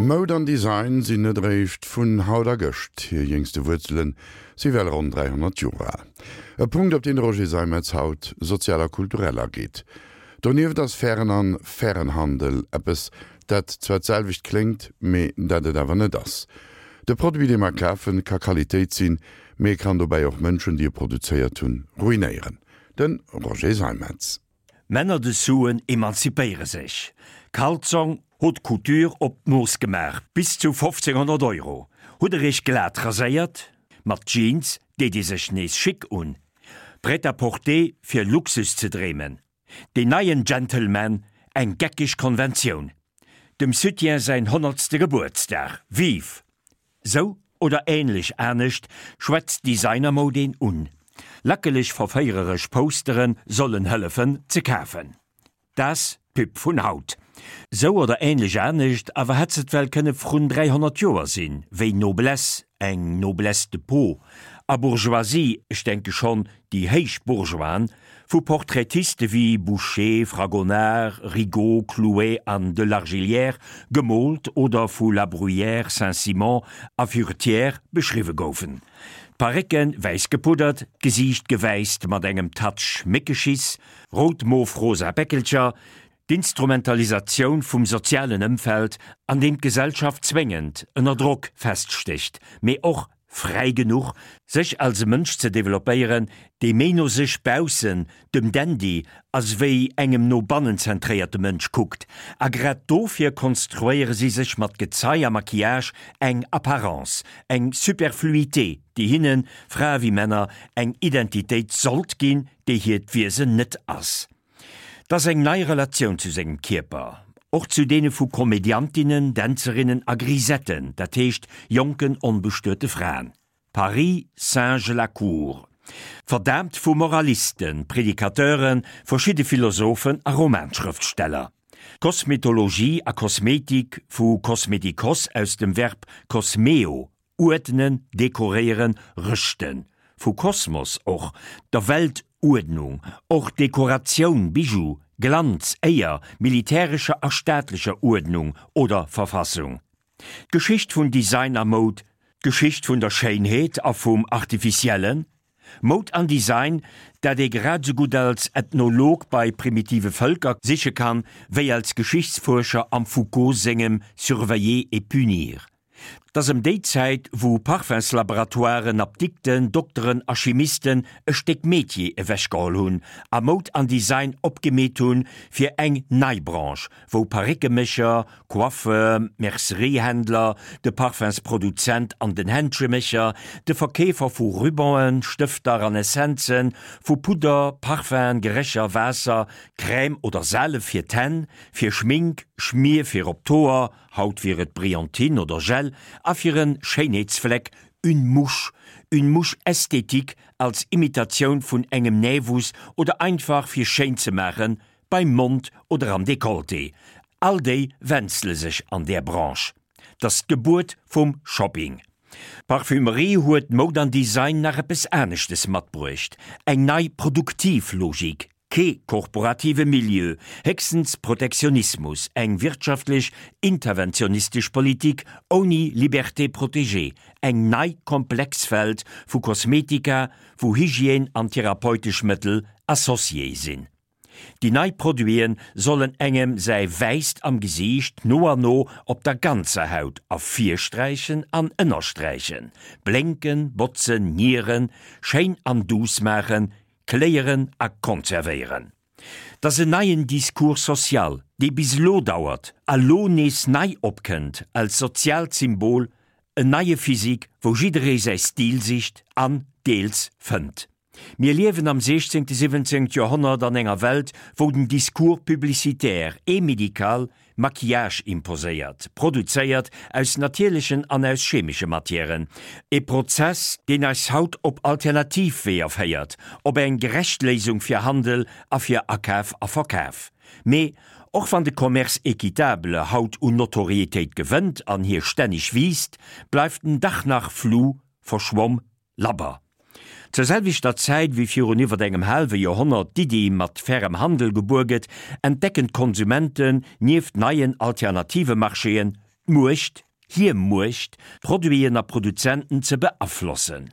Moud an Design sinn net eréischt vun haut a gëscht, hir jéngste Wuerzele si well ronn 300 Joer al. E Punkt, op deen de Roger Seimetz haut sozial a kulturell ageet. Donieft ass fairen an fairen Handel eppes, dat zwar d'selwecht kléngt, mee dat et awer net ass. De Produit, dee mer kafen, ka Qualitéit sinn, mee e kann dobäi och Mënschen, déi e produzéiert hunn, ruinéieren. De Roger Seimetz. Männer de Suen emanzipéiere sech. Kalzong, Haute Couture op d'Mooss gemaach, bis zu 1500 Euro. Hutt der iech glat raséiert? Mat Jeans deet ee sech nees chic un. Prêt-à-porter fir Luxus ze dreemen. Deen neien Gentleman, eng geckeg Konventioun. Dem Soutien säin honnertste Gebuertsdag, vive! Sou oder ähnlech anescht schwätzt Designermoud een un. Lackeleg verféiereresch Postere sollen hëllefen ze kafen. T'ass d'Pub vun haut. Sou oder ähnlech anescht awer hätt s'et well kënne vrun 300 Joer sinn, wéi Noblesse, eng Noblesse de peau, a Bourgeoisie, ech denke schonn déi héich Bourgeoisen, vu Portraitiste wéi Boucher, Fragonard, Rigaud, Clouet an de Largillière gemoolt oder vu La Bruyère, Saint-Simon a Furetière beschriwwe goufen. D'Parécke wäiss gepuddert, d'Gesiicht gewäisst mat engem Touch Méckeschiss, rout-mof-rosa Päckelcher, d'Instrumentalisatioun vum sozialen Ëmfeld, an deem d'Gesellschaft zwéngend ënner Drock feststécht, mee och fräi genuch, sech als e Mënsch ze developpéieren, dee méi no sech baussen, dem Dandy, as wéi engem no bannen zentréierte Mënsch kuckt. A grad dofir konstruéiere si sech mat Gezei a Maquillage eng Apparence, eng Superfluité, déi hinnen, Frae wéi Männer, eng Identitéit sollt ginn, déi hiert Wiesen net ass. 't ass eng nei Relatioun zu sengem Kierper, och zu deene vu Komediantinnen, Dänzerinnen a Grisetten, dat heescht jonken onbestuete Fraen. Paris singe la cour. Verdaamt vu Moralisten, Predicateuren, verschidde Philosophen a Romanschrëftsteller. Kosmetologie a Kosmetik, vu kosmetikos aus dem Verb kosmeo, Uerdnen, dekoréieren, rëschten, vu Kosmos och, der Weltuerdnung, och Dekoratioun, Bijou, Glanz, Éier, militärescher a staatlecher Uerdnung oder Verfassung. D'Geschicht vun Design a Moud, d'Geschicht vun der Schéinheet a vum Artificiellen, Moud an Design, dat ee grad esou gutt als Ethnolog bei primitive Vëlker siche kann, wéi als Geschichtsfuerscher am Foucault sengem Surveiller et punir. 't ass ëm déi Zäit, wou Parfumslaboratoiren, Apdikten, Dokteren a Chimisten e Stéck Metier ewechgeholl hunn a Moud an Design opgemeet hunn fir eng nei Branche, wou Paréckemécher, Coiffeur, Merceriehändler, de Parfumsproduzent an den Händschemécher, de Verkeefer vu Rubanen, Stëfter an Essenzen, vu Pudder, Parfum'en, Gerécher, Waasser, Crème oder Salef fir d'Hänn, fir Schmink, Schmier fir op d'Hoer, Haut wier et Brillantine oder Gel a fir en Schéinheetsfleck une mouche, une mouche esthétique als Imitatioun vun engem Nävus oder einfach fir schéin ze maachen beim Mond oder am Decolleté. All déi wenzele sech an där Branche. T'ass d'Gebuert vum Shopping. D'Parfümerie huet Moud an Design nach eppes aneschtes matbruecht, eng nei produktiv Logik, Kee korporative Milieu, héchstens Protektionismus, eng wirtschaftlech interventionistesch Politik ouni Liberté protégée, eng nei komplex Welt vu Kosmetika, wou Hygiène an therapeutesch Mëttel associé sinn. Déi nei Produite sollen engem säi Wäisst am Gesiicht no an no op der ganzer Haut ervirsträichen an ënnersträichen, blénken, botzen, nieren, schéin an duuss maachen, Kléieren a konservéieren. 't ass en neien Discours social, dee bis elo dauert a lo nees nei opkënnt als soziaalt Symbol, en neie Physique, wou jidderee säi Stil sicht an deels fënnt. Mir liewen am 16., 17. Joerhonnert an enger Welt, wou den Discours publicitaire et médical Maquillage imposéiert, produzéiert aus natierlechen an aus chemesche Matièren, e Prozess, deen eis haut op alternativ Weeër féiert, op eng gerecht Léisung fir Handel a fir Akaf a Verkaf. Mee och wann de Commerce équitable haut un Notoriétéit gewënnt an hie stänneg wiisst, bleift en dach nach flou, verschwomm, Labber. Zur selwechter Zäit wéi virun iwwert engem haalwe Joerhonnert d'Iddi mat fairem Handel gebuer gëtt, entdecken d'Konsumenten, nieft neien alternative Marchéen, d'Muecht, hir Muecht, Produiten a Produzenten ze beaflossen.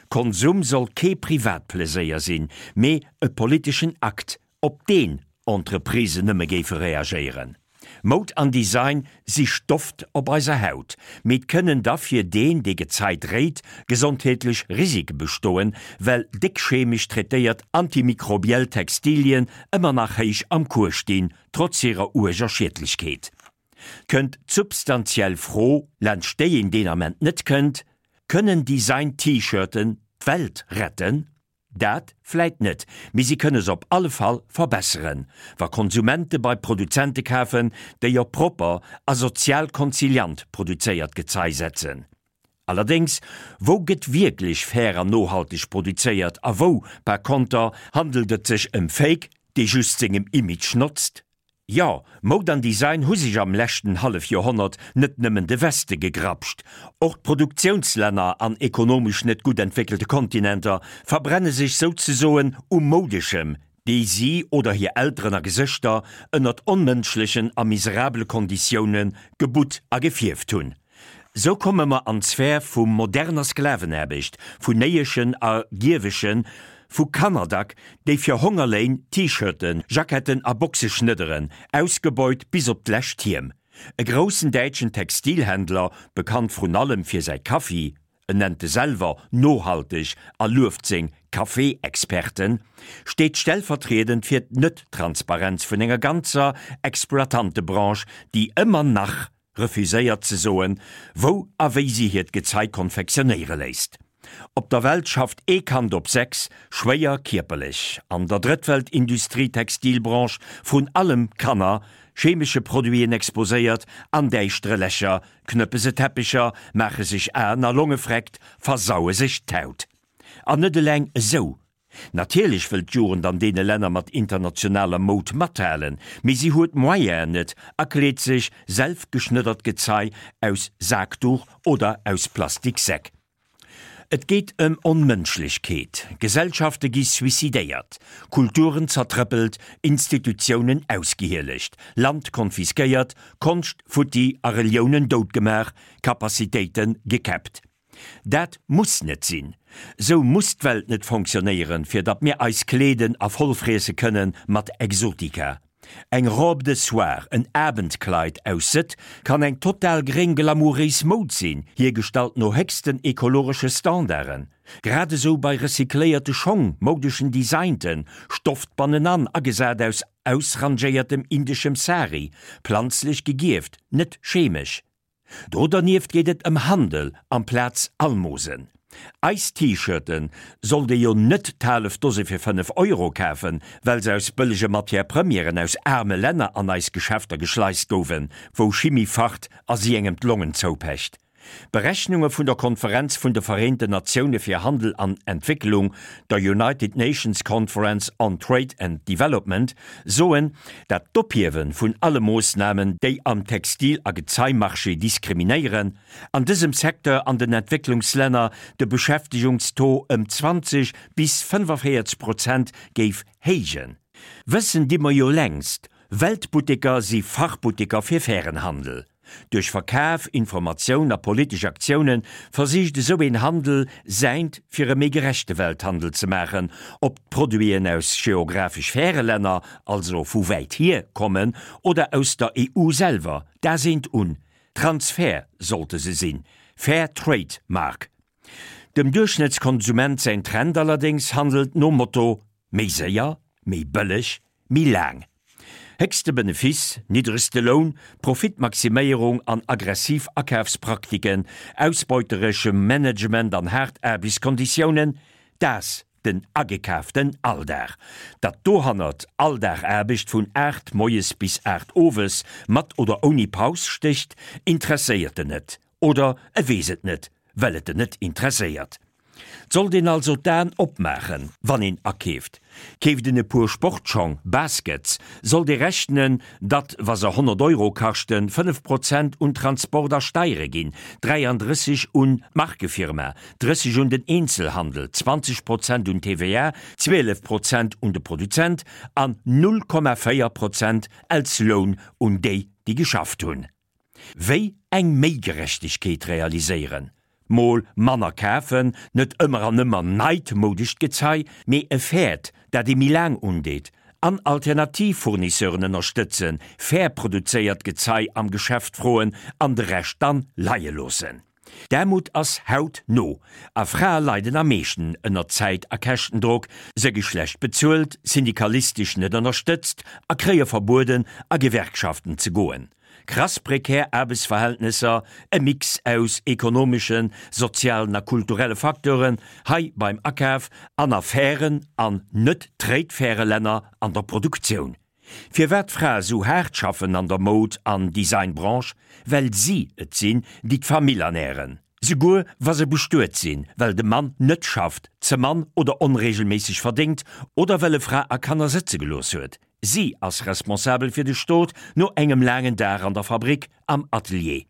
Konsum soll kee Privatpleséier sinn, mee e politeschen Akt, op deen Entreprisen nëmme géife reagéieren. Moud an Design si Stoft op eiser Haut, mee et kënnen da fir deen, dee Gezei dréit, gesondheetlech Risike bestoen, well déck chemesch traitéiert antimikrobiell Textilien ëmmer nach héich am Cours stinn, trotz hirer uerger Schiedlechkeet. Kënnt d'substantiell Fro, laanscht déi een deen Ament net kënnt, Kënnen Design-T-Shirten d'Welt retten? Dat vläit net, mee si kënne se op alle Fall verbesseren, wa Konsumente bei Produzente kafen, déi op propper a sozial konziliant produzéiert Gezei setzen. Allerdéngs, wou gëtt wierklech fair an nohalteg produzéiert a wou, par konter, handelt et sech ëm Fake, dee just sengem Image notzt? Jo, Moud an Design hu sech am leschten Hallefjoerhonnert net nëmmen de Weste gegrapscht. Och d'Produktiounslänner an ekonomesch net gutt entwéckelte Kontinenter verbrenne sech souzesoen u Moudeschem, dee si oder hir Elteren a Gesëschter ënnert onmënschlechen a miserabele Konditioune gebutt a gefierft hunn. Sou komme mer an d'Sphär vu moderner Sklavenaarbecht, vun Néieschen a Gierweschen, vu Kannerdack, déi fir Hongerléin T-Shirten, Jacketten a Boxe schnedderen, ausgebeut bis op d'lescht Hiem. E groussen däitschen Textilhändler, bekannt vrun allem fir säi Kaffi, en nennt e selwer nohalteg a lueft seng Café-Experten, steet stellvertriedend fir d'Net-Transparenz vun enger ganzer Exploitantebranche, déi ëmmer nach refuséiert ze soen, wou a wéi si hiert Gezei konfektionéiere léisst. Op der Welt schafft ee Kand op 6 schwéier kierperlech. An der Drëttwelt-Industrie-Textilbranche vrun allem Kanner, chemesche Produiten exposéiert, an däischtere Lächer knëppe se Teppecher, maache sech Aen a Longe freckt, versaue sech d'Haut. An net eleng esou, Natierlech wëll d'Jugend an deene Länner mat internationaler Moud mathalen, mee si huet d'Moyenen net a kleet sech selfgeschnëddert Gezei aus Saakduch oder aus Plastiksäck. Et geet ëm Onmënschlechkeet, Gesellschafte gi suicidéiert, Kulturen zertrëppelt, Institutiounen ausgehielegt, Land konfiskéiert, Konscht futti a Reliounen doutgemaach, Capacitéite gekäppt. Dat muss net sinn. Sou muss d'Welt net fonctionnéieren, fir datt mir eis kleeden a vollfriesse kënne mat Exotika. Eng Robe de soir, en Abendkleid aus Sëtt kann eng total gréng glamouréis Moud sinn, hiergestallt no héchsten ekologesche Standarden. Grad esou bei recycléierte Schong, moudeschen Designten, Stofft bannenan agesat aus ausrangéiertem indeschem Sari, planzlech gegierft, net chemesch. Do dernieft geet et ëm Handel amplaz Almosen. Eis T-Shirten sollt ee jo net d'haalef Dose fir 5 Euro kafen, well se aus bëllege Matière Premièren aus aarme Länner an eis Geschäfter geschleist gouwen, wou Chimie facht a si engem d'Longen zoupecht. Berechnunge vun der Konferenz vun de Vereenten Natioune fir Handel an Entwécklung, der United Nations Conference on Trade and Development, soen, dat d'Ophiewe vun alle Moossnamen, déi am Textil a Gezeimarché diskriminéieren, an dësem Secteur an den Entwécklungslänner de Beschäftegungstaux ëm 20 bis 45 Prozent géif héijen. Wëssen di mer jo längst, Weltbutteker si Fachbutteker fir fairen Handel. Duerch Verkaf, Informatioun a politesch Aktioune versicht esou een Handel, säint fir e méi gerechte Welthandel ze maachen, ob d'Produiten aus geographesch färe Länner, also vu wäit hier, kommen oder aus der EU selwer, dat eent un. Transfer sollte se sinn, Fair Trade Mark. Dem Duerchschnëttskonsument säin Trend allerdéngs handelt nom Motto, méi séier, méi bëlleg, méi laang. Héchste Benefice, niddregste Loun, Profitmaximéierung an aggressiv Akafspraktiken, ausbeutereschem Management an haart Aarbechtskonditiounen, dat den agekaaften Alldag. Datt dohannert all Dag Aarbecht vun 8 moies bis 8 owes, mat oder ouni Paus stécht, interesséiert en net. Oder e weess et net, well et en net interesséiert. 't sollt een also d'Aen opmaachen, wann een akeeft. Keeft een e puer Sportschong, Baskets, sollt ee rechnen, datt, wa se 100 Euro kaschten, 5 Prozent un Transport a Steiere ginn, 33 un d'Markefirma, 30 un den Eenzelhandel, 20 Prozent un d'TVA, 12 Prozent un de Produzent an 0,4 Prozent als Loun un déi, déi geschafft hunn. Wéi eng méi Gerechtegkeet realiséieren? Mol manner kafen, net ëmmer an ëmmer neit moudescht Gezei, mee e fairt, dat ee méi laang undeet, an alternativ Fournisseuren ënnerstëtzen, fair produzéiert Gezei am Geschäft froen an de Rescht dann leie loossen. D'Aarmut ass haut no a Frae leiden am meeschten ënner Zäit a Käschtendrock, se gi schlecht bezuelt, syndikalistesch net ënnerstëtzt a kréie verbueden a Gewerkschaften ze goen. Krass prekär Aarbechtsverhältnesser, e Mix aus ekonomeschen, sozialen a kulturelle Facteuren, hei beim Akaf, an a fairen an net trade-faire Länner an der Produktioun. Firwat d'Frae sou haart schaffen an der Moud an Designbranche? Well si et sinn, déi d'Famill ernären. Souguer wa se bestuet sinn, well de Mann net schafft, ze mann oder onregelméisseg verdéngt oder well e Fra a Kanner sëtze gelooss huet. Si ass responsabel fir de Stot no engem laangen Dag an der Fabrik, am Atelier.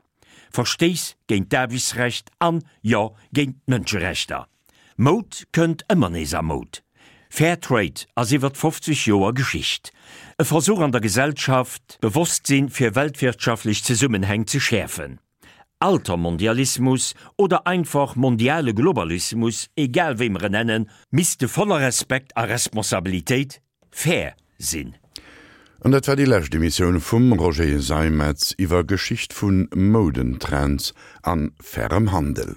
Verstéiss géint d'Aarbechtsrecht an, jo, géint d'Mënscherechter. Moud kënnt ëmmer nees a Moud. Fair Trade ass iwwert 50 Joer Geschicht. E Versuch an der Gesellschaft, d'Bewosstsinn fir weltwirtschaftlech Zesummenhäng ze schäerfen. Altermondialismus oder einfach mondiale Globalismus, egal wéi mer en nennen, misste voller Respekt a Responsabilitéit fair sinn. An dat war déi lescht Emissioun vum Roger Seimetz iwwer Geschicht vu Moudentrends an fairem Handel.